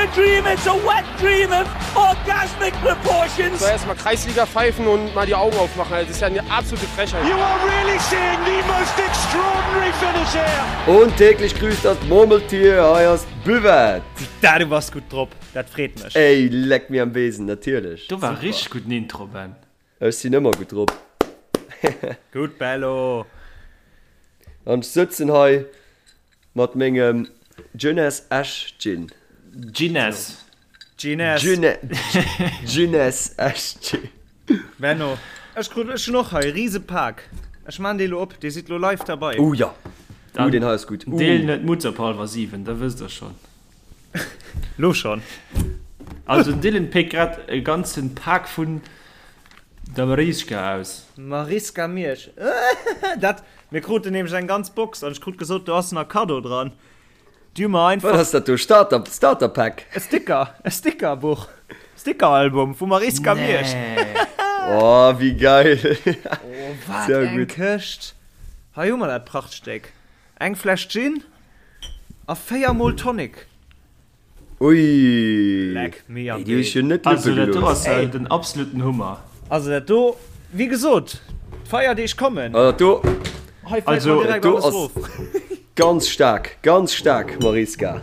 a dream, it's a wet dream of orgasmic proportions. So erstmal Kreisliga pfeifen und mal die Augen aufmachen. Das ist ja eine absolute Frechheit. You are really seeing the most extraordinary finish here. Und täglich grüßt das Murmeltier, hei ass d'Buvette. Da, du bass gutt drop, dat freet mech. Ey, leck mir am Besen, natierlech. Do war richteg gudden Intro, Ben. Ech sinn ëmmer gutt drop. Gutt, Bello. An ech sëtzen hei Mat mengem Jeunesse Esch Gin. Jeunesse. Jeunesse. Jeunesse Esch Gin. Benno, ech krut, ech hunn och hei e rise Pak. Ech maan dee lo op, dir sidd lo live derbei. Oh jo, oh deen hei ass gutt. Deel net Mutz op halwer 7, da wësst der schonn. Lo schonn. Also den Dylan péckt grad e ganzen Pak vun der Mariska aus. Mariska Miersch, dat, mir kruten nämlech eng ganz Box an ech krut gesot, do ass nach Kaddo dran. Déi hu mer einfach. Wat ass dat do? Starter, Starter Pack? E Sticker, e Stickerbuch, Stickeralbum vu Mariska Miersch. Nee. Oh, wéi geil! Oh, wat eng Këscht! Hei hu mer dat Prachtstéck. Eng Fläsch Gin a 4 mol Tonic. Ui! Leck mi am Ey, déi hu sech jo net Also luppe dat do gelooss. ass jo den absoluten Hummer. Also dat do, wéi gesot, d'Feierdeeg kommen. Also dat do, Hei fält Also, mer direkt dat do alles ass rof. ganz staark, ganz staark, Mariska.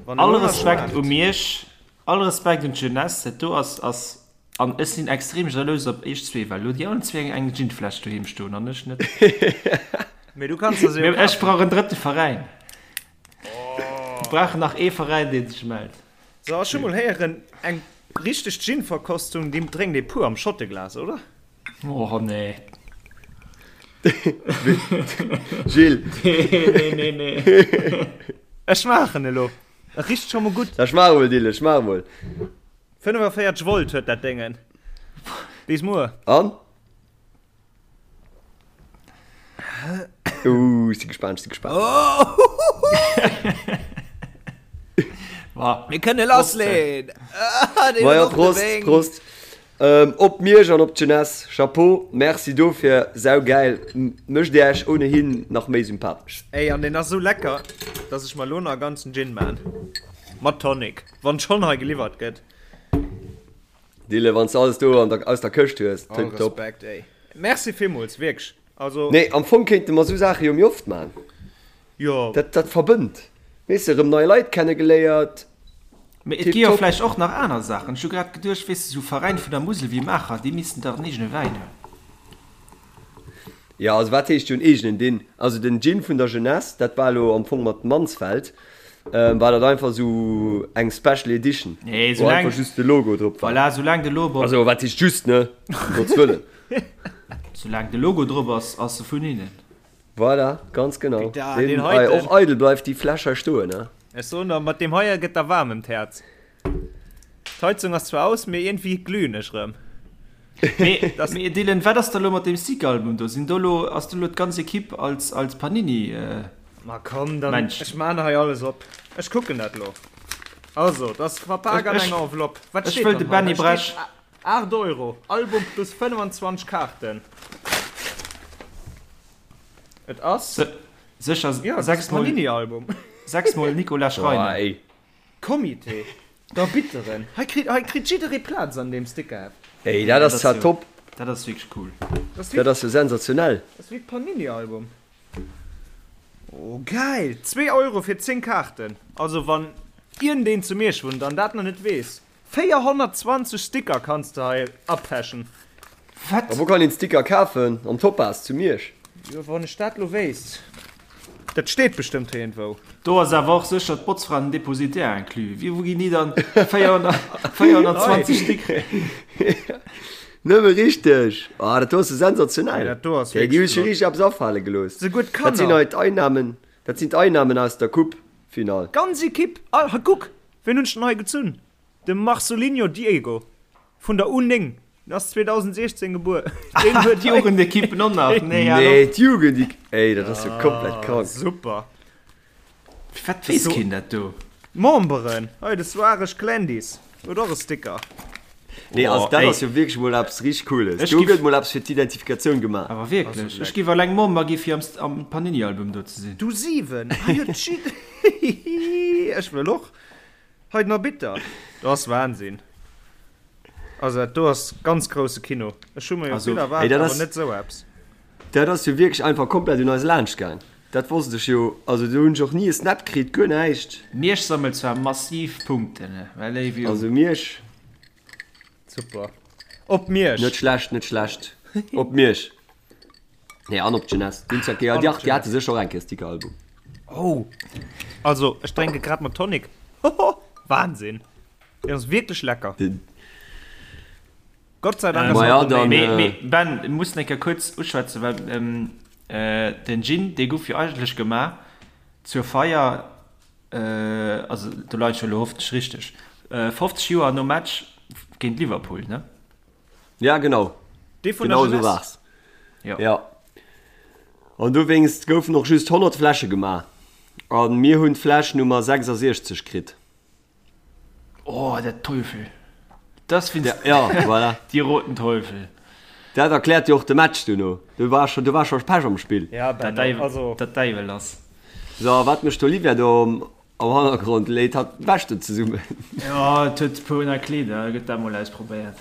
Wann All elo nach Respekt u schmaacht. Miersch, all Respekt un d'Jeunesse, dat do ass, ass, an ech sinn extrem jalous op iech zwee, well elo déi allen zwee eng Ginfläsch doheem stoen an ech net. Mee du kanns der se jo Mee ech kafen. brauch en drëtte Veräin. Mir brauchen nach ee Veräin, dee sech mellt. So, ech hu mol héieren, eng richteg Gin-Verkostung, déi drénkt ee pur am Schotteglas, oder? Oh nee. Gilles. Nee, nee, nee, nee. Ech maachen elo. Et richt scho mol gutt. Da schmaach emol, Dylan, schmaach emol. 45 Volt huet dat Déngen. Bis muer. An? Uh, ech si gespaant, ech si gespaant. Mir kënne lassleen! Ma ja, Prost, Prost. Ähm, op Miersch an op d'Jeunesse. Chapeau, merci dofir, saugäil. Mécht Dir Esch ohnehin nach méi sympathesch. Ey, an deen ass esou lecker, dass ech mer elo nach e ganzen Gin maan. Mat Tonic, wann schonn hei geliwwert gëtt. Dille, wann s de alles do an der, aus der Këscht hues, All tiptop. Respekt, ey. Merci villmools, wierklech. Also. Nee, am Fong kéinte mer sou Saache jo méi oft man. Jo. Dat, dat verbënnt. Weess de, erëm nei Leit kennegeléiert. Mee et gi jo Tiptop. vläicht och nach aner Saachen. Ech hu grad geduecht, weess de, sou Veräin vun der Musel wéi Maacher, déi missten dach en eegene Wäin hunn. Jo, also wat heescht jo en eegenen Dinn? Also den Gin vun der Jeunesse, dat war elo am Fong mat Mansfeld, war dat einfach esou eng Special Edition, Nee, wou soulaang, einfach just de Logo drop war. voilà, soulaang de Logo, Also wat heescht just, ne? Um Gottes Wëllen. soulaang de Logo drop ass, ass e vun hinnen. Voilà, ganz genau. Da, Deen, deen hei, heiten. och eidel bleift déi Fläsch hei stoen, ne? Ech soen der, mat deem heie gëtt der waarm ëm d'Häerz. D'Heizung ass zwar aus, mee iergendwéi glühen ech rëm. Mee, mee Dylan, wat ass da lo mat deem Stick-Album do? Sinn do lo, ass do lo d'ganz Equipe als, als Panini, äh, Ma komm, dann, Mensch. ech maan hei alles op. Ech kucken dat lo. Also, dat ass verpak an Ech, enger Enveloppe. Wat ech steet wëll dann de hei? Benny Da steet Bresch. 8 Euro, Album plus 25 Kaarten. Et ass, Se, sécher jo, et ass e 6 mol, Panini-Album. 6 mol Nicolas Boah, Schreiner. ey. Comité der Bitteren. Hei kritt, hei kritt jidderee Plaz an deem Stickerheft. Ey, dat ass zwar top. Dat ass wierklech cool. Dat ass jo sensationell. Dat ass wéi d'Panini-Album. Oh, geil! 2 Euro fir 10 Kaarten. Also wann iergendeen zu Miersch wunnt an dat nach net weess, 420 Sticker kanns de hei apechen. Wat? A wou kann een Sticker kafen? Am Topaz zu Miersch? Jo, wann ech dat lo wéisst. Dat steet bestëmmt iergendwou. Do ass awer och sécher d'Botzfra an den Depositaire inclus. Wéi, wou ginn déi dann 420 Stéck kréien? Nëmme richteg! Ah, dat do ass jo sensationell! Dat do ass Déi hu wierklech sech jo flott. richteg eppes afale gelooss. Souguer Dat sinn d'Kanner. hei d'Einnahmen, dat sinn d'Einnahmen aus der Coupe-Finall. D'ganz Equipe. All, hei kuck, wien hunn ech denn hei gezunn? De Marcelinho Diego vun der U9, den ass 2016 gebuer. Deen huet hei. D'Jugendequippen och nach? Nee, hal Nee, op. d'Jugend, ey, dat ass jo komplett krank. Super. Firwat weess keen dat do? Memberen, hei de Soares Clandis huet och e Sticker. Nee, also Oh, dat ey. ass jo wierklech mol eppes richteg Cooles. Ech Do giff- gëtt mol eppes fir d'Identifikatioun gemaach. Awer wierklech, ech giff alleng Member gi fir am, am Panini-Album do ze sinn. Du 7, hei huet jidderee. Ech wëll och. Hei den Arbitter. Dat ass Wahnsinn. Also dat do ass ganz grousse Kino. Ech hu mer jo vill erwaart, awer net esou eppes. Dat ass jo wierklech einfach komplett un eis laanscht gaang. Dat wosst ech jo. Also do hunn ech och ni e Snap kritt, guer näischt. Miersch sammelt zwar massiv Punkten, mä léif Jung. Also Miersch. Super. Op Miersch. Net schlecht, net schlecht. Op Miersch. Nee, an op d'Jeunesse. Déi hunn zwar, ja, dach, déi hate sécher och eng Kéier Stickeralbum. Oh. Also, ech drénke grad mat Tonic. Hoho, Wahnsinn. Deen ass wierklech lecker. Gott sei Dank ass Ma ja, dann, Mee, mee Ben, ech muss eng Kéier kuerz uschwätzen, well den Gin, dee guff jo eigentlech gemaach zur Feier, also do leien ech jo elo hoffentlech richteg, 50 Joer nom Match géint Liverpool, ne? Ja, genau. Dee vun der Genau esou Jeunesse. war's. Jo. Ja. An dowéinst goufen och just 100 Fläsche gemaach. A mir hunn d'Fläsch Nummer 66 kritt. Oh, der Teufel. Das findest Ja, ja, voilà. Die roten Teufel. Dat erkläert jo och de Match duerno. Do war scho, do war scho Pech am Spill. Ja, Der Benno, Däiwel, also. der Däiwel ass. So, a wat mécht d'Olivia do am, am Hannergrond? Léit hatt d'Wäsch do zesummen? Jo, et huet e puer nei Kleeder, gëtt dat mol ausprobéiert.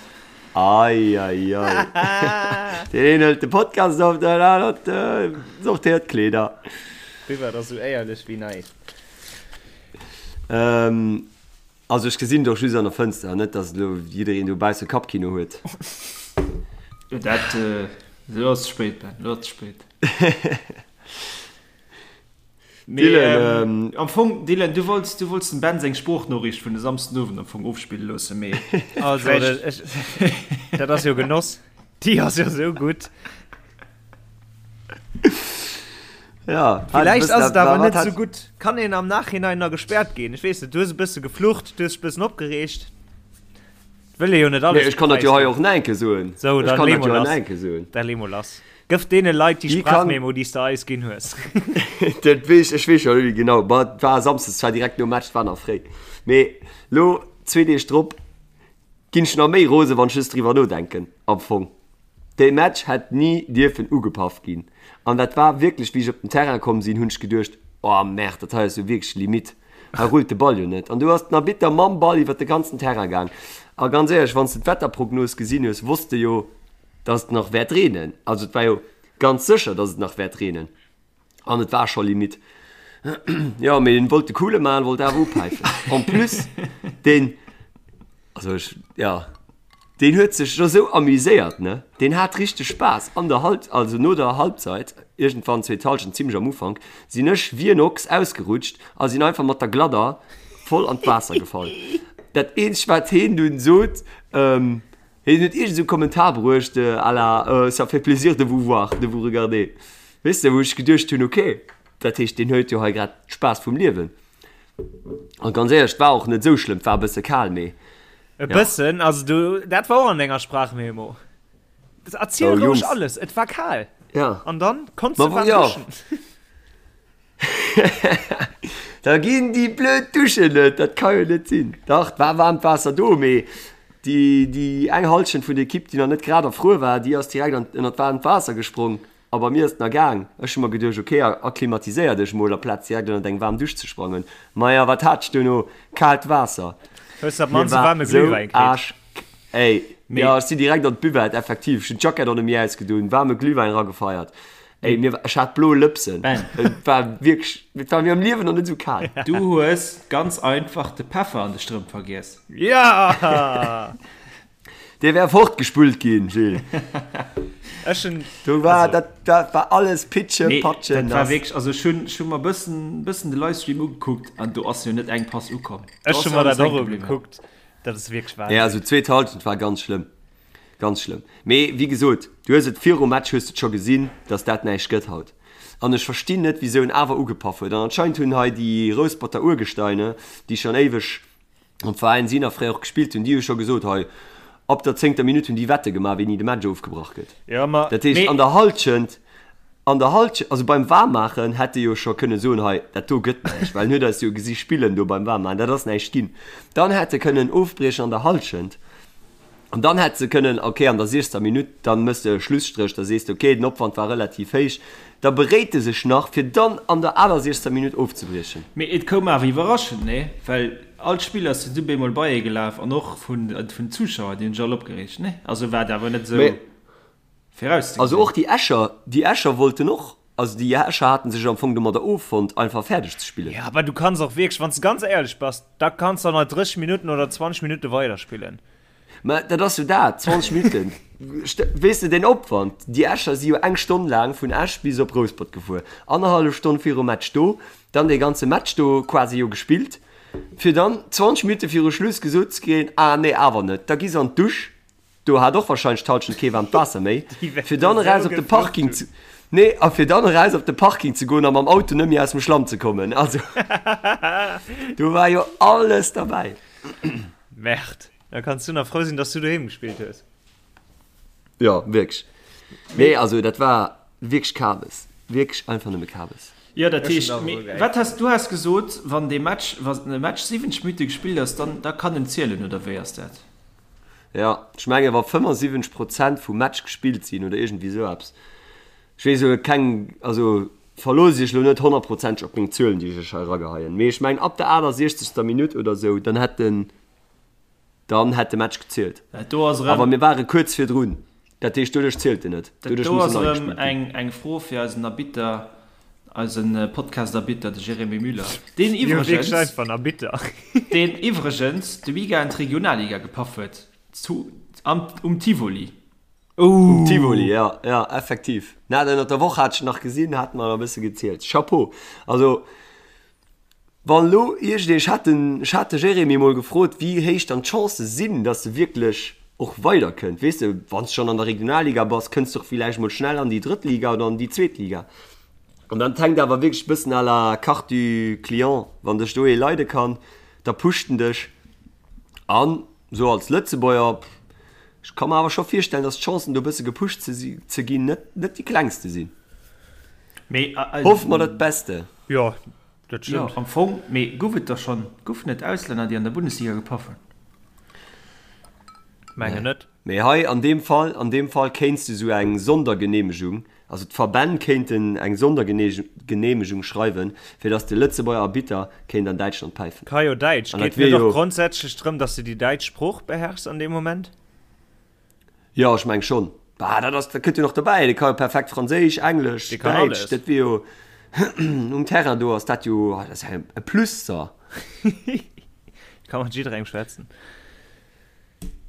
Ei, ei, ei. Deen een hëlt de Podcast op, den anert sortéiert d'Kleeder. Riwwer, dat ass esou éierlech wéi näischt. Ähm, also ech gesinn et och just an der Fënster, net dass elo jiddereen dobausse Kappkino huet. Jo, dat, elo ass et spéit, Ben, elo ass et spéit. Mee, Dylan, ähm, am Fong, Dylan, du wollts, du wollts dem Ben seng Sproochnoriicht vun de Samsdenowend am Fong ofspille loossen, mee Also, vläicht. ech, dat ass jo Genoss. Déi ass jo esou gutt. Ja, Villäicht ass et awer net esou gutt. Kann een am Nachhinein nach gespäert ginn? Ech weess net, du hues e bësse geflucht, du hues dech e bëssen opgereegt. Wëll ee jo net alles Nee, ech kann dat jo hei och nach eng Kéier soen. Sou, Ech dann kann lee dat jo mol hei lass. nach eng Kéier soen. Da lee mol lass. Gëff deene Leit déi Déi kann. Sprachmemo, déi s de eis ginn hues. Dat weess, ech weess scho net méi genau. Ma et war samsdes, et war direkt nom Match, et war nach fréi. Mee lo, zwee Deeg drop, ginn ech nach méi rose wann ech just driwwer nodenken am Fong. Dee Match hätt ni dierfen ugepaff ginn. An dat war wierklech, wéi ech op den Terrain komm sinn, hunn ech geduecht, Oh merde, dat hei ass jo wierklech Limite. Hei rullt de Ball jo net. An du ass den Arbitter mam Ball iwwer de ganzen Terrain gaang. A ganz éierlech, wann s de d'Wetterprognos gesinn hues, wosst de jo, dass et nach wäert reenen. Also et war jo ganz sécher, dass et nach wäert reenen. An et war scho Limite. Jo, mee en wollt de coole maachen, wollt awer upäifen. En plus, deen, also ech, jo, deen huet sech jo sou amuséiert, ne? Deen hat richteg Spaass. An der Halb, also no der Halbzeit, iergendwann zweet Halschent, zimmlech am Ufank, sinn ech wéi en Ochs ausgerutscht a sinn einfach mat der Gladder voll an d'Waasser gefall. Dat eenzegt, wat heen dunn sot, Hien huet iergend esou Kommentar bruecht à la ça fait plaisir de vous voir, de vous regarder. Weess de, wou ech geduecht hunn, ok, dat heescht deen huet jo hei grad Spaass vum Liewen. An ganz éierlech, et war och net esou schlëmm, et war e bësse kal, mee E bëssen, also du, dat war och an denger Sprachmemo. Erziel Oh, roueg Jungs. alles, et war kal. Ja. An dann konns Ma du waarm ja. duschen. Da ginn déi blöd Duschen net, dat ka jo net sinn. Dach, et war waarmt Waasser do, mee déi, déi eng Hallschent vun der Ekipp, déi nach net grad erfruer war, déi ass direkt an, ënnert waarmt Waasser gesprong. A bei mir ass et nach gaang. Ech hu mer geduecht, ok, akklimatiséier dech mol, aplaz direkt ënnert eng waarm Dusch ze sprangen. Maja, wat hat ech duerno? Kaalt Waasser. Hues de op Mir d'mannst e war waarme sou Glühwäin kritt? aasch. Ey, jo, ech sinn direkt an d'Buvette, effektiv. Ech hunn d'Jackett och net méi ausgedoen, waarme Glühwäin eragefeiert. Ey, mir, ech hat blo Lëpsen. Ben. Et war wierklech, et war mir am Liewen nach net esou kal. Du hues ganz einfach de Peffer an de Strëmp vergiess. Ja! Dee wär fortgespullt ginn, Gilles. Ech hunn, Do war, also. dat, dat war alles Pitsche, Nee, Patsche, dat war nass. wierklech, also ech hunn, ech hu mer bëssen, bëssen de Livestream ugekuckt an do ass jo net eng Pass ukomm. Do Ech ass hu jo mer alles dat och hänke bliwwen. ugekuckt. Dat ass wierklech Nee, Wahnsinn. also d'zweet Halschent war ganz schlëmm. Ganz schlëmm. Mee wéi gesot, du hues et virum Match hues de et scho gesinn, dass dat näischt gëtt haut. An ech verstinn net, wisou en awer ugepaff huet. An anscheinend hunn hei déi Rousperter Urgesteine, déi schonn éiweg am Veräin sinn a fréier och gespillt hunn, déi hu scho gesot, hei ab der zéngter Minutt hunn déi Wette gemaach, wéini de Match ofgebrach gëtt. Jo, ma. Dat heescht, an der Hallschent, an der Hallschent, also beim Waarmmaachen hätt e jo scho kënne soen, hei dat do gëtt näischt, well en huet eis jo gesi spillen do beim Waarmmaachen, dat ass näischt ginn. Dann hätt e kënnen ofbriechen an der Hallschent. An dann hätt se kënnen, okay, an der 60. Minutt, dann méchs de e Schlusstréch, da sees de, okay, den Opwand war relativ héich, da beréit e sech nach, fir dann an der 68. Minutt ofzebriechen. Mee et koum awer iwwerraschend, nee? Well all d'Spiller sinn du bemol beiee gelaf an och vun den Zuschauer, déi hunn sech all opgereegt, nee? Also war et awer net esou virauszegesinn. Also och déi Escher, déi Escher wollten och, also déi Escher haten sech am Fong domadder offonnt, einfach fäerdeg ze spillen. Jo, awer du kanns och wierklech, wann s de ganz éierlech bass, da kanns de och nach 30 Minutten oder 20 Minutte weiderspillen. Mä dat ass jo dat, 20 Minutten. Weess de, deen Opwand, déi Escher si jo eng Stonn laang vun Esch bis op Rouspert gefuer, annerhallef Stonn virum Match do, dann dee ganze Match do quasi jo gespillt, fir dann 20 Minutte viru Schluss gesot ze kréien, ah nee, awer net. Da gi se an d'Dusch, do hat och warscheinlech d'Hallschent kee waarmt Waasser méi, fir dann eraus op de Parking ze, nee, a fir dann eraus op de Parking ze goen a mam Auto net méi aus dem Schlamm ze kommen. Also do war jo alles derbäi. Merde. Da kanns du nach frou sinn, dass du doheem gespillt hues. Jo, wierklech. Nee, also dat war wierklech Kabes. Wierklech einfach nëmme Kabes. Jo, dat heescht, mee wat has du has gesot, wann dee Match, wann e Match 70 Minutte gespillt ass, dann da kann en zielen, oder wéi ass dat? Jo, ech menge wa 75 Prozent vum Match gespillt sinn oder iergendwéi esou eppes. Ech weess elo keng, also verloosst iech elo net honnertprozenteg op meng Zuelen, déi ech iech hei erageheien, mee ech mengen ab der 68. Minutt oder esou, dann hätt den, Dann hätt de Match gezielt. Dat do ass erëm. Awer mir ware kuerz virdrun. Dat heescht, doduerch zielt en net. Dat do ass erëm eng, eng Fro fir eisen Arbitter, eise Podcast-Arbitter, de Jérémy Müller, deen iwwregens, deen iwwregens de Weekend d'Regionalliga gepaff huet, zu, am, um Tivoli. Um Tivoli, jo, jo, effektiv. Na, ënnert der Woch hat ech en nach gesinn, hat mer e bësse gezielt. Chapeau! Also. Wann elo iergendeen, ech hat den, ech hat de Jérémy emol gefrot, wéi héich dann d'Chancë sinn, datt e wierklech och weiderkënnt. Weess de, wann s de schonn an der Regionalliga bass, kënns de och villäicht mol schnell an déi drëtt Liga oder an déi zweet Liga. An dann hänkt awer wierklech e bëssen à la carte du client, wann dech do ee leide kann, da pusht en dech. An esou als Lëtzebuerger, ech ka mer awer scho virstellen, datt d'Chancen do e bësse gepusht ze si, ze ginn, net, net déi klengste sinn. Mee, Hoffe mer dat Beste. Jo, dat Jo, stëmmt. am Fong, mee gouf et der schonn, goufen et Auslänner, déi an der Bundesliga gepaff hunn? Mengen net. Mee hei an deem Fall, an deem Fall kéints de sou eng Sondergenehmegung, also d'Verbänn kéinten eng Sondergenehmegung schreiwen, fir datt de Lëtzebuerger Arbitter kéint an Däitschland päifen. Ka jo Däitsch. An dat Geet wier net och jo. grondsätzlech drëm, datt s de déi däitsch Sprooch beherrschs an deem Moment? Jo, ech meng schonn. Bah, dat ass, dat kënnt jo nach dobäi. Dee ka jo perfekt Franséisch, Englesch, Dee kann Däitsch. alles. Dat wier jo um Terrain do ass dat jo, ah, dat ass ja e Plus da. Ka mat jidderengem schwätzen.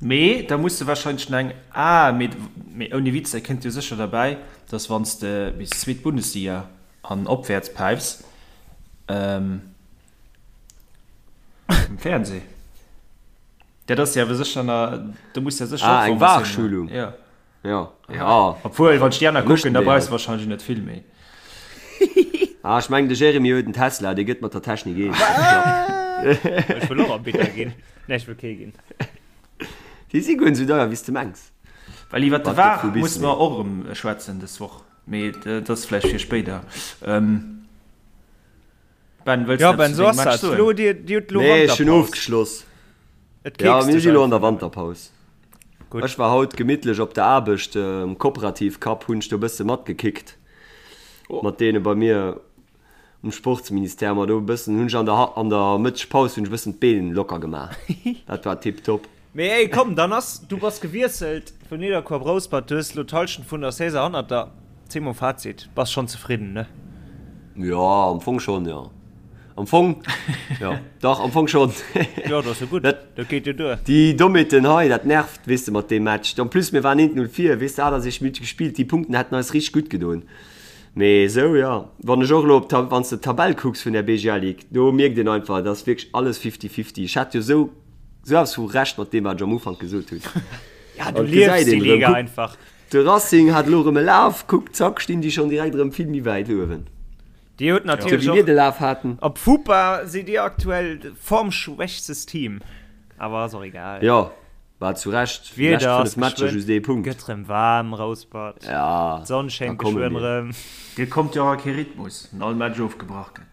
Mee da muss de wahrscheinlech nach eng, ah, mee, mee ouni Witz, dat kënnt jo sécher derbäi, dass wann s de bis zweet Bundesliga an opwäerts päifs, ähm, um Fernseh. Dat ass jo awer sécher na, do muss ja sécher Ah, eng VAR-Schulung. Ja. Ja. Ja. Obwuel, wann ech déi aner kucken, da déi brauchs halt. de wahrscheinlech net vill méi. Ah, ech mengen, de Jérémy huet en Tesla, dee gëtt mat der Technik eens. Ech wëll och Arbitter ginn. Nee, ech wëll kee ginn. Déi si guer net esou deier, wéi s de mengs. Well iwwer de Wat VAR gëtt vu bis musse méi. mer och erëm schwätzen dës Woch, mee dat ass vläicht fir spéider. Ben, wëlls Ja du Ben, eppes zu sou dengem ass Match dat. soen? Lo, dir, dir hutt lo Nee, ech hunn Wanterpaus. ofgeschloss. Et Ja, keekst mir dech si lo an der einfach nëmmen. Wanterpaus. Gutt. Ech war haut gemittlech op der Aarbecht, um Kooperativ Cup hunn ech do e bësse matgekickt mat deene bei mir um Sportsministère. Ma do e bëssen hunn ech an der an der Mëttegpaus hunn ech e bëssen d'Been locker gemaach. Dat war tiptop. Mee ey, komm, dann ass, du bass gewiesselt vun Nidderkuer op Rouspert, du hues elo d'Hallschent vun der Saison hannert der. Ziel mol Fazit, bass schonn zefridden, ne? Jo, am Fong schonn, jo. Am Fong, jo, dach, am Fong schonn. Jo, dat ass jo gutt, Dat, dat geet jo duer. déi Dommheeten hei, dat nervt, weess de, mat deem Match. En plus, mir waren 1-0 vir, weess de, 68 Minutte gespillt, déi Punkten hätten eis richteg gutt gedoen. Mee esou, jo, wann ech och elo op d'Ta, wann s de d'Tabell kucks vun der BGL Ligue, do mierkt een einfach, et ass wierklech alles fifty-fifty. Ech hat jo esou, esou eppes vu Recht mat deem, wat ech am Ufank gesot hunn. Ja, du An et liefs gesäit déi een erëm, Liga kuck, einfach. De Racing hat elo erëm e Laf, kuck, zack, stinn déi schonn direkt erëm vill méi wäit uewen. Dir hutt Sou natierlech wéi mir och de Laf haten. op FUPA sidd dir aktuell formschwächstes Team, awer ass och egal. Jo, war zu Recht, déi lescht D'Wieder ass 5 Matcher geschwënn, just ee Punkt. gëtt rëm waarm, Rouspert, Ja, d'Sonn da schéngt komme geschwënn mir. rëm. Dir kommt jo och a kee Rhythmus, wann all Match ofgebrach gëtt.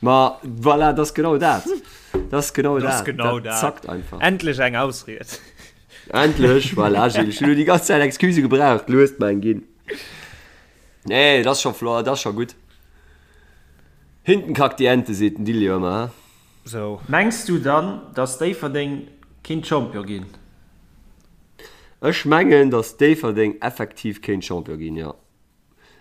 Ma voilà, dat ass genau dat. Dat ass genau Dat ass dat. genau Dat dat. zackt einfach. Endlech eng Ausried. Endlech, voilà Gilles, ech hunn elo déi ganz Zäit Excuse gebraucht, lo hues de mer eng ginn. Nee, dat ass scho flott, dat ass scho gutt. Hinten kackt die Ente, seet den Dilly jo ëmmer, he? Sou. Mengs du dann, dass Déifferdeng kinnt Champion ginn? Ech mengen, dass Déifferdeng effektiv kéint Champion ginn, jo.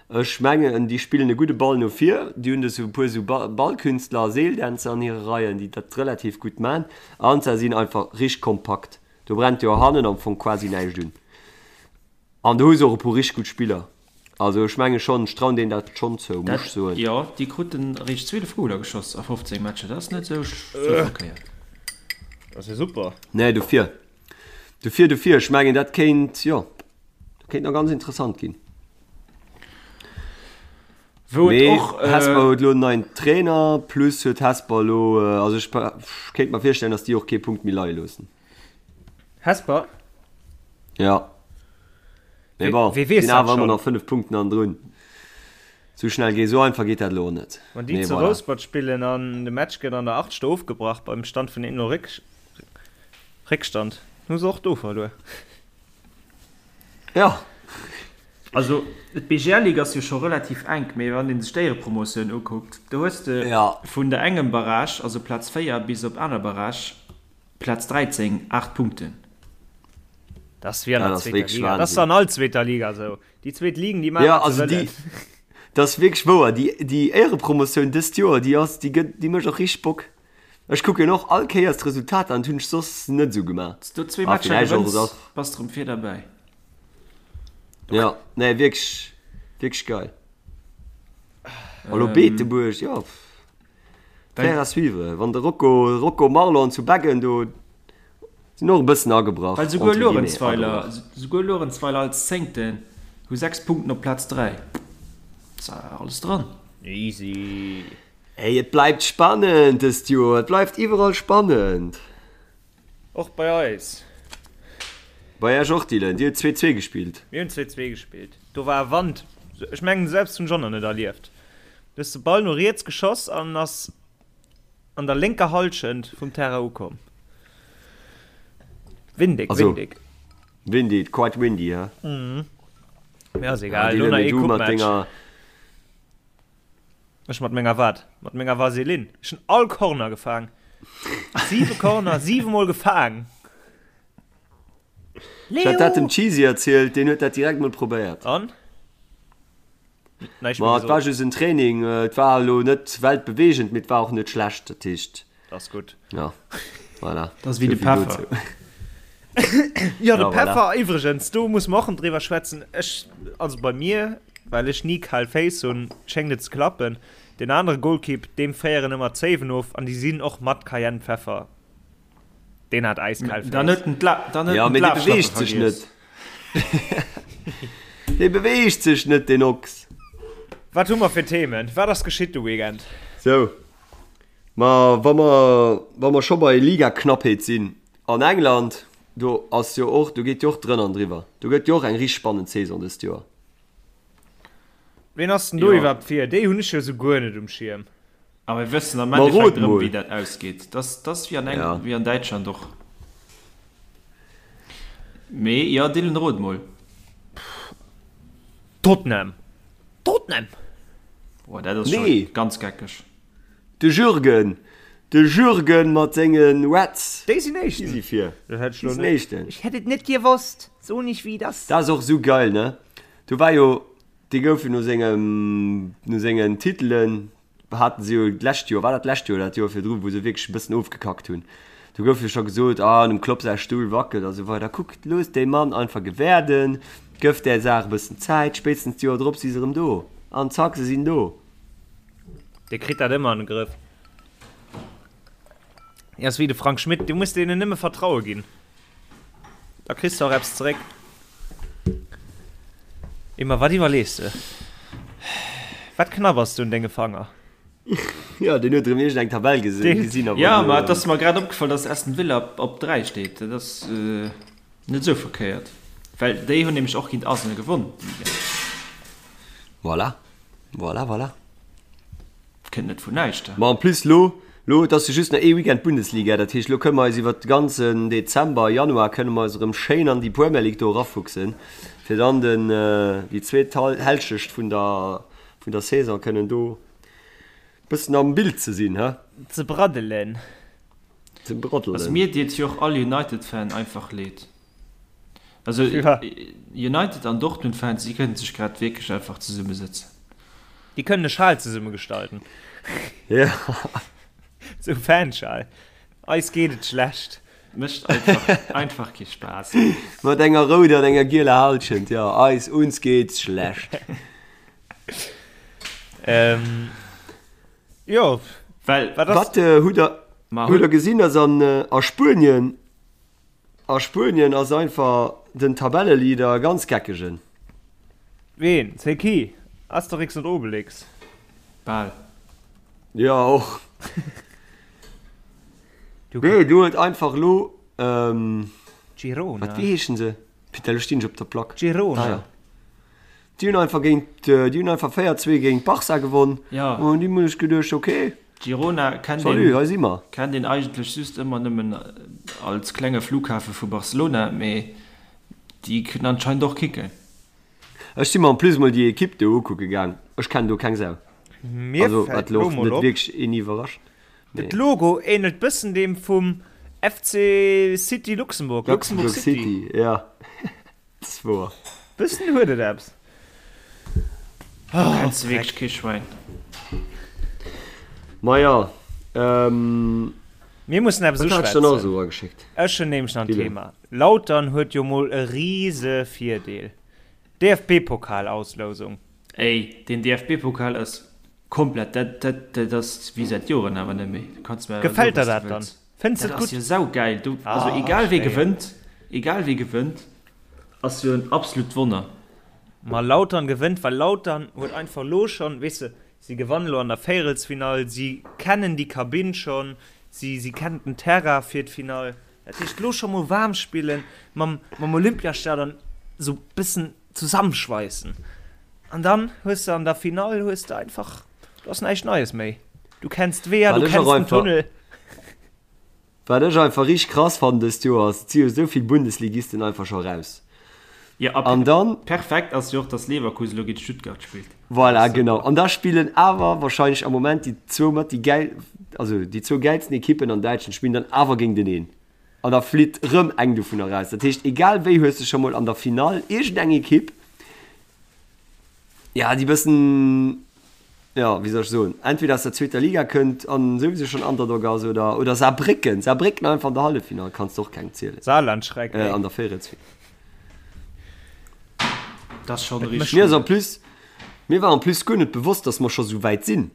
Ech mengen, déi spillen e gudde Ball no vir. Déi hunn esou e puer esou Ballkünstler a Seeldänzer an hire Reien, déi dat relativ gutt man. An se sinn einfach richteg kompakt. Do brennt jo hannen am Fong quasi näischt un. An do hu se och e puer richteg gutt Spiller. Also ech menge schonn, ech trauen deenen dat schonn zou, muss ech soen. Jo, déi kruten eréischt 12 Goler geschoss a 15 Matcher, dat ass net esou verkéiert. Dat ass jo super. Nee, dofir. Dofir, dofir, ech mengen dat kéint, jo, dat kéint nach ganz interessant ginn. Wou et Mee och, Hesper huet elo en neien Trainer, plus huet Hesper elo, also ech kéint mer virstellen, datt déi och kee Punkt méi leie loossen. Hesper? Ja. Mee bon, Wee weess sinn dat awer ëmmer schonn? nach 5 Punkten hannendrun. Sou schnell geet, sou einfach geet dat elo och net. Wann déi Mee zu voilà. Rouspert spillen an de Match gëtt an der 8. ofgebrach beim Stand vun 1-0 Réck Réckstand, hu se och do verluer. Ja. Also d'BGL-Ligue ass jo scho relativ enk, mee wann ee sech d'Éierepromotioun ukuckt, do hues de vun der engem Barrage, also Plaz 4, bis op aner Barrage, Plaz 13, 8 Punkten. Dat ass wéi an der Dat ass zweeter wierklech Liga. Dat ass Wahnsinn. an all zweeter Liga esou. Déi zweet Ligen, déi maachen, Ja, wat se also déi, wëllen. dat ass wierklech wouer. Déi, déi Éierepromotioun dëst Joer, déi ass, déi gëtt, déi mécht och richteg Bock. Ech kucken och all Kéiers d'Resultater an, dat hunn ech soss net esou gemaach. Wanns du zwee Ah, Matcher villäicht och gewënns, esou. bass de rëm vir derbäi. Ja, nee, wierklech, wierklech geil. A lo Beetebuerg, jo, faire à suivre. Wann de Rocco, Rocco Marlon zu Beggen do sinn och e bëssen agebrach, Well souguer entre guillemets, Luerenzweiler, agebrach. souguer Luerenzweiler als Zéngten hu 6 Punkten op Plaz 3. Ass alles dran. Easy. Ey, et bleift spannend dëst Joer, et bleift iwwerall spannend. Och bei eis. Bei Iech och, Dylan, dir hutt 2, 2 gespillt. Mir hunn 2, 2 gespillt. Do war e Wand, ech mengen selbst hunn ech och nach net erlieft. Du hues de Ball no riets geschoss an ass an der lénker Hallschent vum Terrain ukomm. Windig, Also, windig. Windy, quite windy, he? Mee ass Ja, egal, elo Dylan, nach mee ee du mat Coupe-Match. denger. Ech mat menger wat? Mat menger Vaseline. Ech hunn all Corner gefaang. Siwe Corner, siwemol gefaang. Ech hat dat dem Leo! Cheesy erzielt, deen huet dat direkt mol probéiert. An? Näischt méi Ma et war gesot. just en Training, et war elo net weltbeweegend, mee et war och net schlecht, dat heescht. Dat ass gutt. Ja, voilà. Dat ass wéi de Peffer. Jo, de Ja, voilà. Peffer iwwregens, do muss mer och driwwer schwätzen. Ech, also bei mir, well ech ni kal Féiss hunn, schéngt et ze klappen. Deen anere Golkipp, deem féieren ëmmer d'Zéiwen of an déi sinn och mat Cayennepfeffer. Deen hat äiskal Féiss. Dann huet en d'La, dann huet Ja, en mee dee d'Lafschlappe beweegt sech vergiess. net. Dee beweegt sech net, deen Ochs. Wat hu mer fir Themen? Wat ass geschitt de Weekend? Sou, Ma wa mer, wa mer scho bei Ligaknappheet sinn, an England, do ass jo och, do geet jo och drënn an driwwer. Do gëtt jo och eng richteg spannend Saison dëst Joer. Ween ass denn do Jo. iwwerhaapt vir? Déi hunn ech jo esou guer net um Schierm. A mir wëssen am Ma Endeffekt rot erëm, mol. wéi dat ausgeet. Dat ass, dat ass wéi an Eng, Ja. wéi an Däitschland och. Mee jo, Dylan, rot mol. Tottenham! Tottenham! Boah, dat ass scho Nee. ganz geckeg. De Jürgen, de Jürgen mat senge Reds. Déi sinn Éischten. Déi si vir. Dat hätt ech Déi lo sinn net. Éischten. Ech hätt et net gewosst. So nich wéi dass. Dat ass och esou geil, ne? Do war jo, dee gouf jo no sengem, no sengen Titelen, haten se jo d'lescht Joer, war dat d'lescht Joer oder dat Joer virdru, wou se wierklech e bëssen ofgekackt hunn. Do gouf jo scho gesot, ah, dem Klopp säi Stull wackelt a sou weider. Kuck, looss dee Mann einfach gewäerden, gëff där Saach e bëssen Zäit, spéitstens d'Joer drop si se erëm do. An zack, se sinn do. Dee kritt dat ëmmer an de Grëff. Dee ass wéi de Frank Schmidt, du muss deenen nëmme Vertraue ginn, da kriss de och eppes zeréck. Emma, wat iwwerlees de? Wat knabbers du un denge Fanger? Jo, deen huet erëm iergend eng Tabell gesinn a wollt Jo, elo. ma et ass mer grad opgefall, dass Aston Villa op 3 steet. Dat ass net esou verkéiert, well déi hunn nämlech och géint Arsenal gewonn. Voilà. Voilà, voilà. Kënnt net vun näischt. Ma en plus lo. Lo, et ass jo just nach ee Weekend Bundesliga, dat heescht, lo kënne mer eis iwwert de ganzen Dezember, Januar kënne mer eis erëm schéin an déi Premier League do erafuchsen, fir dann den, déi zweet Hälschecht vun der, vun der Saison kënnen do bëssen am Bild ze sinn, he? Ze braddelen. Ze braddelen. Also mir deet jo och all United-Fan einfach leed. Also United an Dortmund-Fans, déi kënnen sech grad wierklech einfach zesummesëtzen. Déi kënnen e Schal zesumme gestalten. Ja. Sou Fanschal. Eis geet et schlecht. Mécht einfach, einfach kee Spaass. Mat enger rouder an enger gieler Halschent, ja, eis, uns geht's schlecht. Ähm, jo. Well, wat ass. Wat hutt der, hutt der gesinn, dass an, a Spuenien, A Spuenien ass einfach den Tabelleleader e ganz geckegen. Ween? C'est qui? Asterix und Obelix? Bal. Jo, och. Nee, do huet einfach elo, Girona. Wat, wéi heeschen se? Putain, elo stinn ech op der Plack. Girona. Ah, ja. Déi hunn einfach géint, déi hunn einfach 4, 2 géint Barça gewonn. Ja. An déi hunn ech geduecht, okay. Girona kennt Salut, een, hei si mer. kennt een eigentlech just ëmmer nëmmen als klenge Flughafe vu Barcelona, mee déi kënnen anscheinend och kicken. Ech si mer en plus mol déi Ekipp do ukucke gaang. Ech kennen do keng Sau. Mir Also, fält wat elo lo och mol net op, wierklech een iwwerrascht, mee. De Logo ähnelt bëssen deem vum FC City Luxembourg, Luxembourg Luxembourg City. City, ja. Ass wouer. Bëssen huet et eppes. Do kenns de wierklech kee Schwäin. Maja, ähm. Mir mussen eppes Wat hat ech dann nach uschwätzen. esou erageschéckt? Ech hunn nämlech nach en Dylan. Thema. Lautern huet jo mol e rise Virdeel. DFB-Pokal-Auslousung. Ey, den DFB-Pokal ass komplett, dat, dat, dat ass wéi säit Joren awer net méi. Du kanns mir awer soen, Gefält der was du dat dann? wëlls. Fënns de Dat et ass gutt? jo saugeil. Du, also Ah, egal wee schéin. gewënnt, egal wee gewënnt, ass jo en absolut Wonner. Ma Lautern gewënnt, well Lautern huet einfach lo schonn, weess de, si gewannen lo an der Véierelsfinall, si kennen déi Kabinn schonn, si, si kennen den Terrain fir d'Finall. Dat heescht, lo scho mol waarm spillen, mam, mam Olympiastadion esou bëssen zusammenschweissen. An dann hues de an der Finall hues de einfach, do ass näischt Neies méi. Du kenns d'Weeër, Wat du ech kenns och den einfach, Tunnel. wat ech einfach richteg krass fannen dëst Joer ass, et si jo esou vill Bundesligisten einfach scho raus. Jo, a An dann, perfekt ass jo och, dass Leverkusen elo géint Stuttgart spillt. voilà, genau, an da spillen awer wahrscheinlech am Moment déi zwou mat déi gäil, also déi zwou gäilsten Ekippen an Däitschland spillen dann awer géinteneen. An da flitt rëm eng dovunner raus. Dat heescht, egal wéi hues de scho mol an der Finall iergendeng Ekipp, ja, déi bëssen, ja, wéi soll ech soen, entweder aus der zweeter Liga kënnt an souwisou schonn Underdog ass oder, oder Saarbrécken. Saarbrécken einfach an der Halleffinall kanns de och kengem zielen. Saarlandschreck, Äh, ey. an der Véierelsfinall. Dat ass schonn richteg Mir ass gutt. en plus, mir war en plus guer net bewosst, dass mer scho sou wäit sinn.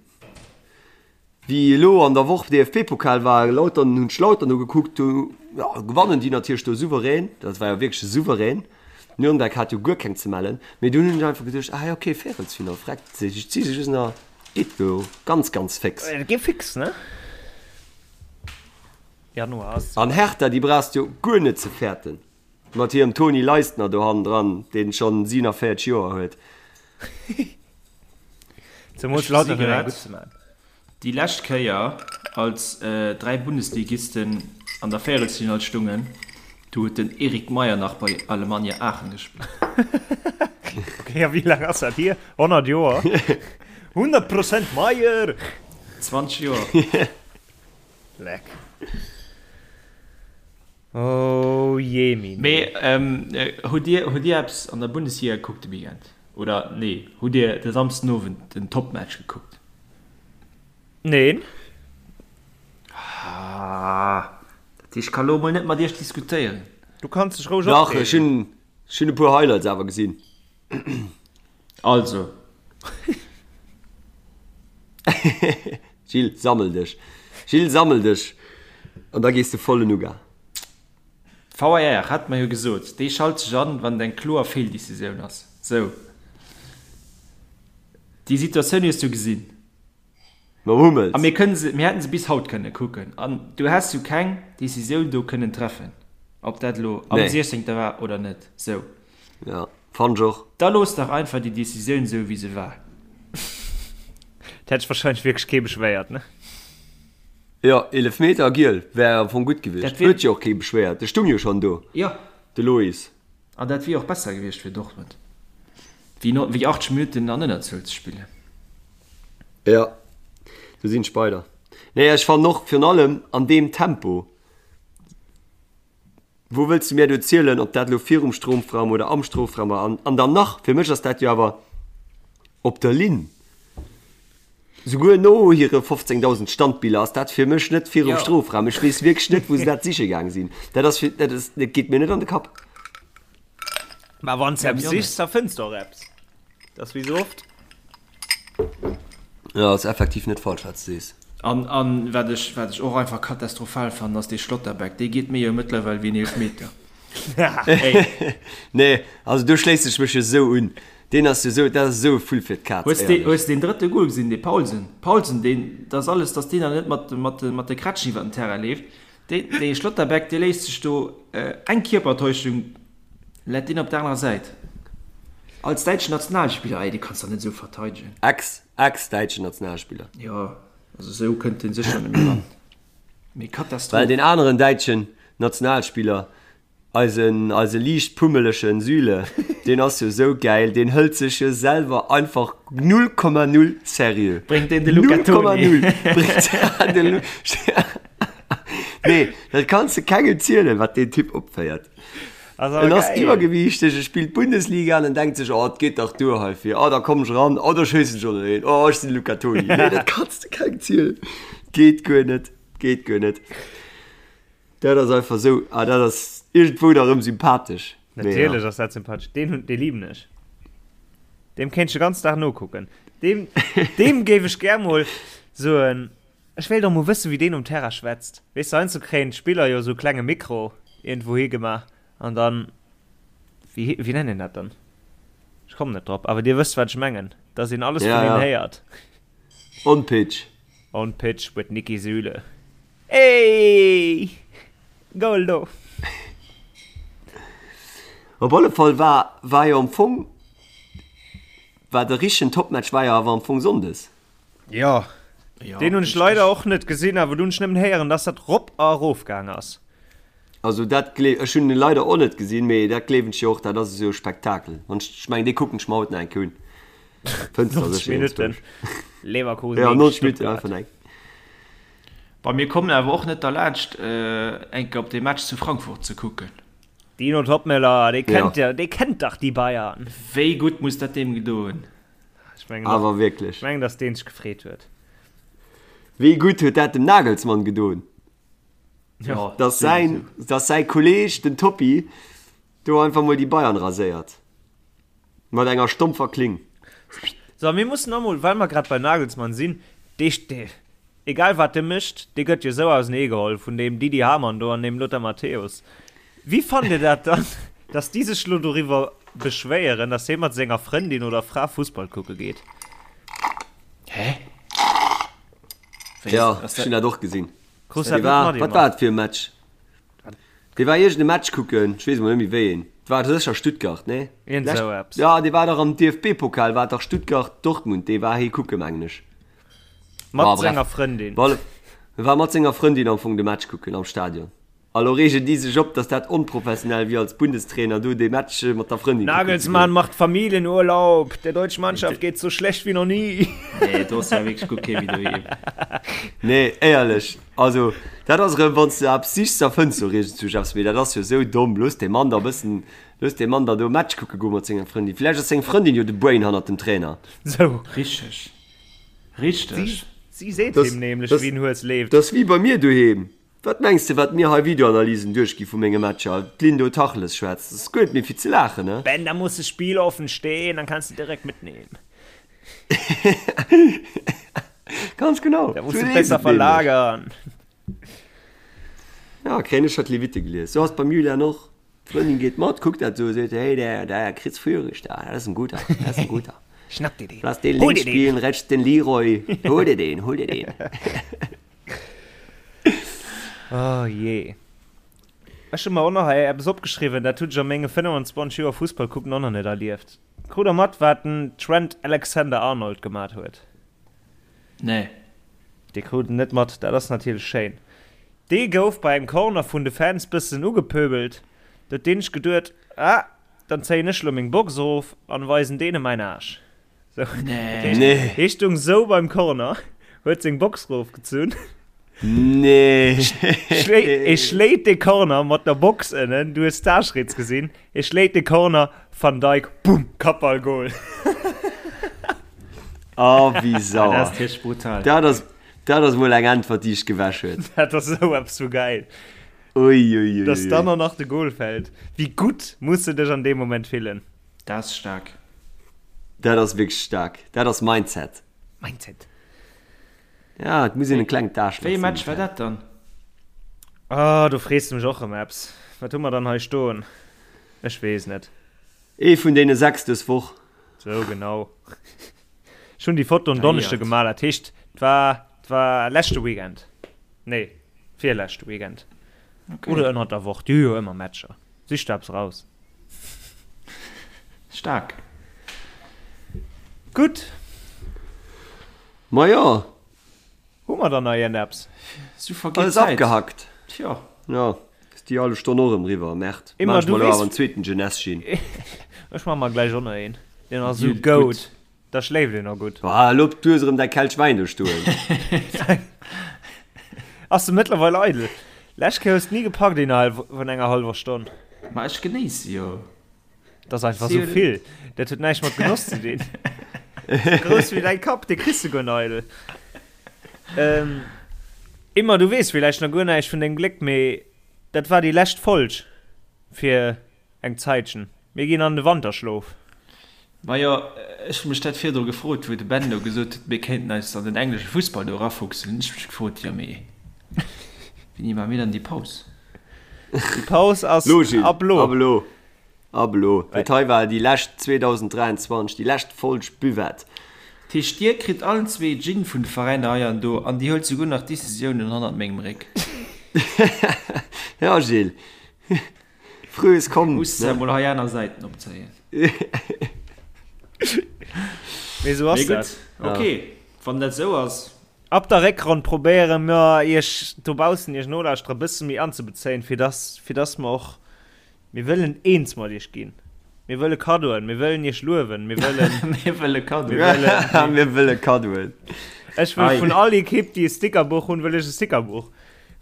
Wéi elo an der Woch DFB-Pokal war, Lautern, hunn ech Lautern ugekuckt, do jo gewannen déi natierlech do souverän, dat war jo wierklech souverän. Nürnberg hat jo guer keng ze mellen, mee dunn hunn ech einfach geduecht, ah jo okay, Véierelsfinall, freck, si si just nach, geet do ganz ganz féx. Et geet fix, ne? Januar ass. An Hertha, déi brauchs de jo guer net ze fäerten, mat hirem Toni Leistner do hannendran, deen schonn 47 Joer huet. Zemools Ech Lautern gesi huet eng grad, gutt ze man. déi lescht Kéier, als 3 Bundesligisten an der Véierelsfinall stungen, do huet den Erik Meyer nach bei Alemannia Aachen gespillt. Okay, a wéi laang ass dat hier? 100 Joer? 100 Prozent Meyer! 20 Joer. Leck. Oh jemine. Mee hutt Dir, hutt Dir eppes an der Bundesliga gekuckt de Weekend? Oder nee, hutt Dir de Samsdenowend den Topmatch gekuckt? Neen. Ah, dat heescht, ech ka lo mol net mat Iech diskutéieren. Du kanns dech roueg Dach, ech opreegen. hunn, ech hunn e puer Highlights awer gesinn. Also. Gilles, sammel dech. Gilles, sammel dech. An da gees de voll en Uga. VAR, hat mer jo gesot, dee schalt sech an, wann et eng kloer Feeldecisioun ass. Sou. Déi Situatioun hues du gesinn. Mam Hummels. A mir kënnen se, mir hätten se bis haut kënne kucken. An du häss jo keng Decisioun do kënnen treffen, ob dat elo am Nee. 16. war oder net. Sou. Ja, fannt ech och. Da looss dach einfach déi Decisioun sou, wéi se war. Et hätt sech wahrscheinlech wierklech kee beschwéiert, ne? Jo, Eelefmeter a giel wär am Fong gutt gewiescht. Huet jo och kee beschwéiert, de stung jo schonn do, de Lois. An dat wier och besser gewiescht fir Dortmund, wéi 80 Minutten an Ënnerzuel ze spillen. Jo, do sinn ech bei der. Nee, ech fannen och virun allem an deem Tempo. Wou wëlls de mir do zielen, ob dat elo virum Strofraum oder am Strofraum war? An, an dann nach, fir mech ass dat jo awer op der Linn. Souguer no hire 15.000 Standbiller ass dat fir mech net virum ja. Strofraum. Ech weess wierklech net, wou se dat siche gaang sinn. Dat ass fir, dat ass, dat geet mir net an de Kapp. Mä wann s eppes sichs, da fënns de och eppes. Dat ass wéi sou oft. Jo, ass effektiv net falsch wat s de sees. An an wat ech wat ech och einfach katastrophal fannen ass dee Schlotterbeck, dee geet mir jo mëttlerweil wéi en Eelfmeter. Nee, also do schléiss ech mech jo sou un. Deen ass jo sou, dat ass esou e Vull fir d'Kaz, Hues de hues deen drëtte Goal gesinn, dee Paulsen? Paulsen, deen, dat ass alles, datt deen da net mat mat mat de Krätschen iwwer den Terrain leeft. Dee dee Schlotterbeck, dee léisst sech do eng Kierpertäuschung Läit deen op der anerer Säit? Als däitschen Nationalspiller, ey, dee kanns dach net esou verteidegen. Ex, ex-däitschen Nationalspiller. Jo, also esou kënnt dee sécher net méi ran. Mee Katastroph. Well deen aneren däitschen Nationalspiller, eisen, eise liicht pummelegen Süle, deen ass jo esou gäil, deen hëlt sech jo selwer einfach 0,0 seriö. Bréngt deen de Luca Toni? 0,0 bréngt de Lu. Nee, dat kanns de kengem zielen, wat deen Typ opféiert. En ass iwwergewiichteg, e spillt Bundesliga an en denkt sech, oh, et geet dach duer heifir, oh, da komm ech eran, oh, da schéissen ech och nach een, oh, ech sinn de Luca Toni. Nee, dat kanns de kengem zielen. Geet guer net, geet guer net. Dat ass einfach esou, ah, dat ass iergendwou da rëm sympathesch. Natierlech ass dat sympathesch. Deen hunn, dee liben ech. Deem kéint ech de ganzen Dag nokucken. Deem, deem géif ech gär mol soen. Ech wéilt och mol wëssen wéi deen um Terrain schwätzt. Weess de heiansdo kréien d'Spiller jo esou klenge Mikro iergendwou higemaach an dann, wéi wéi nennt een dat dann? Ech kommen net drop, awer dir wësst wat ech mengen, dass een alles vun hinnen héiert. On pitch. On pitch with Niki Süle. Ey! Goal do! Op alle Fall war war jo am Fong war de richtegen Topmatch war jo awer am Fong Sonndes. Jo, deen hunn ech leider och net gesinn, awer do hunn ech nëmmen héieren, dass dat rop a erof gaang ass. Also dat gleef, ech hunn en leider och net gesinn, mee dat gleewen ech jo och, dat ass esou e Spektakel. Wann ech, ech mengen dee kucken ech mer haut nach eng Kéier un. Fënns der 90 sécher Minutten iergendzwousch. Leverkusen Ja, géint 90 Minutten Stuttgart. einfach eng. Bei mir kommen awer och net derlaanscht eng Kéier op dee Match zu Frankfurt ze kucken. Dino Toppmöller, dee Ja. kennt jo, dee kennt dach déi Bayern. Wéi gutt muss dat deem gedo hunn? Ech mengen, Awer wierklech. Ech mengen, dass deen sech gefreet huet. Wéi gutt huet dat dem Nagelsmann gedoen, Ja, dass säin, dass säi Kolleeg, den Toppi, do einfach mol déi Bayern raséiert. Mat enger stompfer Kling. So, mir mussen och mol, well mer grad beim Nagelsmann sinn, dee, dee, egal wat de mécht, dee gëtt jo esou ausenee geholl vun deem Didi Hamann do an deem Lothar Matthäus. Wéi fannt Dir dat dann, dass déi sech lo doriwwer beschwéieren, dass hie mat senger Frëndin oder Fra Fussball kucke geet? Hä? Wéi Ja, ass ech hunn dat? dat och gesinn. Krus dat Dee net war, mat, wat Emma? war et fir e Match? Dee war iergend e Match kucken, ech weess emol net méi wéi een. Et war sécher Stuttgart, nee? Iergend Lescht, esou eppes. ja, dee war dach am DFB-Pokal, war et dach Stuttgart-Dortmund, dee war hie kucke mengen ech. Mat Bah, bref. senger Frëndin. Op alle, war mat senger Frëndin am Fong de Match kucken am Stadion. A lo reegen déi sech op, dass dat onprofessionell wier als Bundestrainer do dee Match mat der Frëndin kucken ze Nagelsmann goen. macht Familienurlaub, der deutschen Mannschaft geht's so schlecht wie noch nie. Nee, do ass ja wierklech guer kee méi doheem. Nee, éierlech, also dat ass erëm, wann s de eppes sichs, da fënns de och iergendzwousch eppes, mee dat ass jo esou domm. Looss dee Mann da e bëssen, looss dee Mann da do e Match kucke goe mat senger Frëndin. Vläicht ass seng Frëndin jo de Brain hannert dem Trainer. Sou. Richteg, richteg. Si, si seet Das, him nämlech, das, wéi en Hues leeft. das ass wéi bei mir doheem. Wat mengs de wat mir hei Videoanalysen duerchgi vu menge Matcher, d'Lynn do Tacheles schwätzt, ass guer net méi fir ze laachen, ne? Ben, da muss das Spiel offen stehen, dann kannst du direkt mitnehmen. Ganz genau, Da sou musst du leeft besser et nämlech. verlagern. Ja, kréien ech scho d'Levite gelies. Sou ass et beim Julian och. D'Frëndin geet mat, kuckt dat sou, seet, hey, der, der Chris Führich da, dat ass en guter, dat ass en guter. Schnapp dir den. Lass den Hol links dir den. spielen, rechts den Leroy. Hol dir den, hol dir den. Oh jee. Ech hu mer och nach hei eppes opgeschriwwen, dat hunn ech a menge 25 Joer Fussball kucken och nach net erlieft. Krut der mat, wat den Trent Alexander-Arnold gemat huet? Nee. Dee krut en net mat, dat ass natierlech schéin. Dee gouf bei engem Corner vun de Fans bëssen ugepöbelt. Do huet deen sech geduet, Ah, dann zéien ech lo meng Box erof an weisen deene mäin Aarsch. Sou, dat heescht, Nee. hee stung sou beim Corner, huet seng Box erofgezunn, Nee. schlé e schléit de Corner mat der Box ënnen, du hues d'Aarschritz gesinn, e schléit de Corner, Van Dijk, bumm, Kappball, Goal. Oh, wéi Dat sauer. ass tierch brutal. Dat ass, dat ass mol eng Äntwert, déi ech gewäsch huet. Dat ass esou eppes vu gäil. Ui, ui, ui, Dass ui. dann och nach de Goal fält. Wéi gutt muss de dech an deem Moment fillen? Dat ass staark. Dat ass wierklech staark. Dat ass Mindset. Mindset. Ja, et muss een e klengt Aarschlach Wéi ee sinn. Match war dat dann? Ah, do frees de mech och rëm eppes. Wat hu mer dann hei stoen? Ech weess net. Ee vun deene 6 dës Woch. Sou, genau. Ech hunn déi Foto en Donneschde Geéiert. gemaach, dat heescht, 't war, 't war leschte Weekend. Nee, virleschte Weekend. Okay. Oder ënnert der Woch, déi hu jo ëmmer Matcher. Sich der eppes raus. Staark. Gutt. Majo. Hu mer dann nach iergendeppes? Sou vergeet Alles d'Zäit. abgehackt. Tjo. Jo, ass déi hallef Stonn och erëm riwwer. Merde. Immer, Maan ech du mer elo weess. awer en zweeten Jeunesse Gin. Ech man mer gläich och nach een. Deen ass sou Gutt. goud. Da schléift een och gutt. Ah, elo du hues erëm däi Kelch Wäin do stoen. Ass de mëttlerweil eidel? Lescht Kéier hues de ni gepackt innerhalb vun enger hallwer Stonn. Ma ech genéisse jo. Dat ass einfach sou vill. Dat huet näischt mat Genoss ze dinn. Grouss wéi däi Kapp, dee kriss de guer net eidel. Ähm, Immer, du weess villäicht nach guer näischt vun dengem Gléck, mee dat war déi lescht Folg fir eng Zäitchen. Mir ginn an de Wanterschlof. Majo, ech hu mech dat virdru gefrot, wou de Ben do gesot huet, mir kéinten eis an den englesche Fussball do erafuchsen, hunn ech mech gefrot, jo mee wéini maache mir dann déi Paus? Déi Paus ass Lo, Gilles, ab lo. ab elo, ab elo. Dat hei war déi lescht 2023, déi lescht Folg Buvette. Dat heescht, dir kritt allen zwee Gin vun de Veräiner hei an do an dir huelt souguer nach Decisiounen hannert mengem Réck. Ja, Gilles, Frühes kommt, Muss ne? mol hei aner Säiten opzéien. Mee sou ass Mee dat. gutt, ok, wann dat sou ass. Ab der Réckronn probéiere mer iech dobaussen, iech Nolauschterer, e bësse méi anzebezéien, fir dass, fir dass mer och, mir wëllen eens mat iech ginn. Mir wëlle Kaddoen, mir wëllen iech luewen, mir wëllen. Mir wëlle Kaddoen. Mir wëllen. Mir wëlle Kaddoen. Ech wëll Ei. vun all Ekipp, déi e Stickerbuch hunn, wëll ech e Stickerbuch.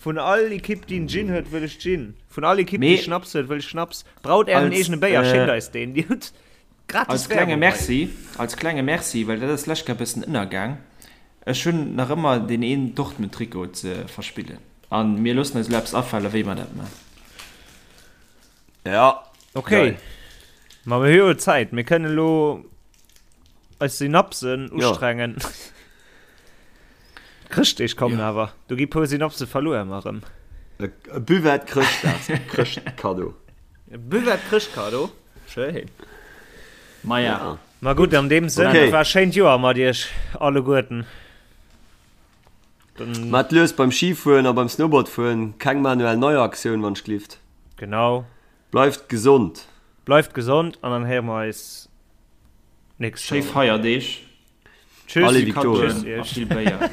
Vun all Ekipp déi en Gin huet, wëll ech Gin. Vun all Ekipp déi Schnaps huet, wëll ech Schnaps. Braut ären eegene Béier, schéckt eis deen. Dir hutt gratis Als klenge Werbung hei. Merci, als klenge Merci, well dat ass d'lescht Kéier e bëssen ënnergaang, ech hunn nach ëmmer deen een Dortmund-Trikot ze verspillen. A mir loossen eis elo eppes afale wéi mer dat man. Ja. Ok, Geil. ma mir hu jo Zäit, mir kënnen elo eis Synapsen ustrengen. D'Chrëschtdeeg kommen ja. awer, do gi puer Synapse verluer ëmmer erëm. E Buvette Chrëschtdags Chrëschtkaddo. E Buvette Chrëschtkaddo, schéin. Ma ja. Ja. Ma gutt, an deem Sënn, Okay. et war e schéint Joer mat iech alleguerten. Dann, Mat lues beim Schifueren a beim Snowboardfueren, keng Manuel Neuer Aktioun wann ech glift. genau. Bleift gesond. Bleift gesond an dann héiere mer eis nächst Schéi Joer erëm. Feierdeeg. Tschüss. Allez Victoria. Tschüss A iech. vill Béier.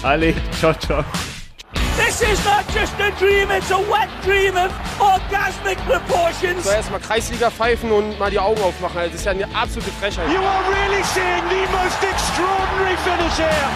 Allez, ciao ciao. This is not just a dream, it's a wet dream of orgasmic proportions. So erstmal Kreisliga pfeifen und mal die Augen aufmachen. Also das ist ja eine absolute Frechheit. You are really seeing the most extraordinary finish here.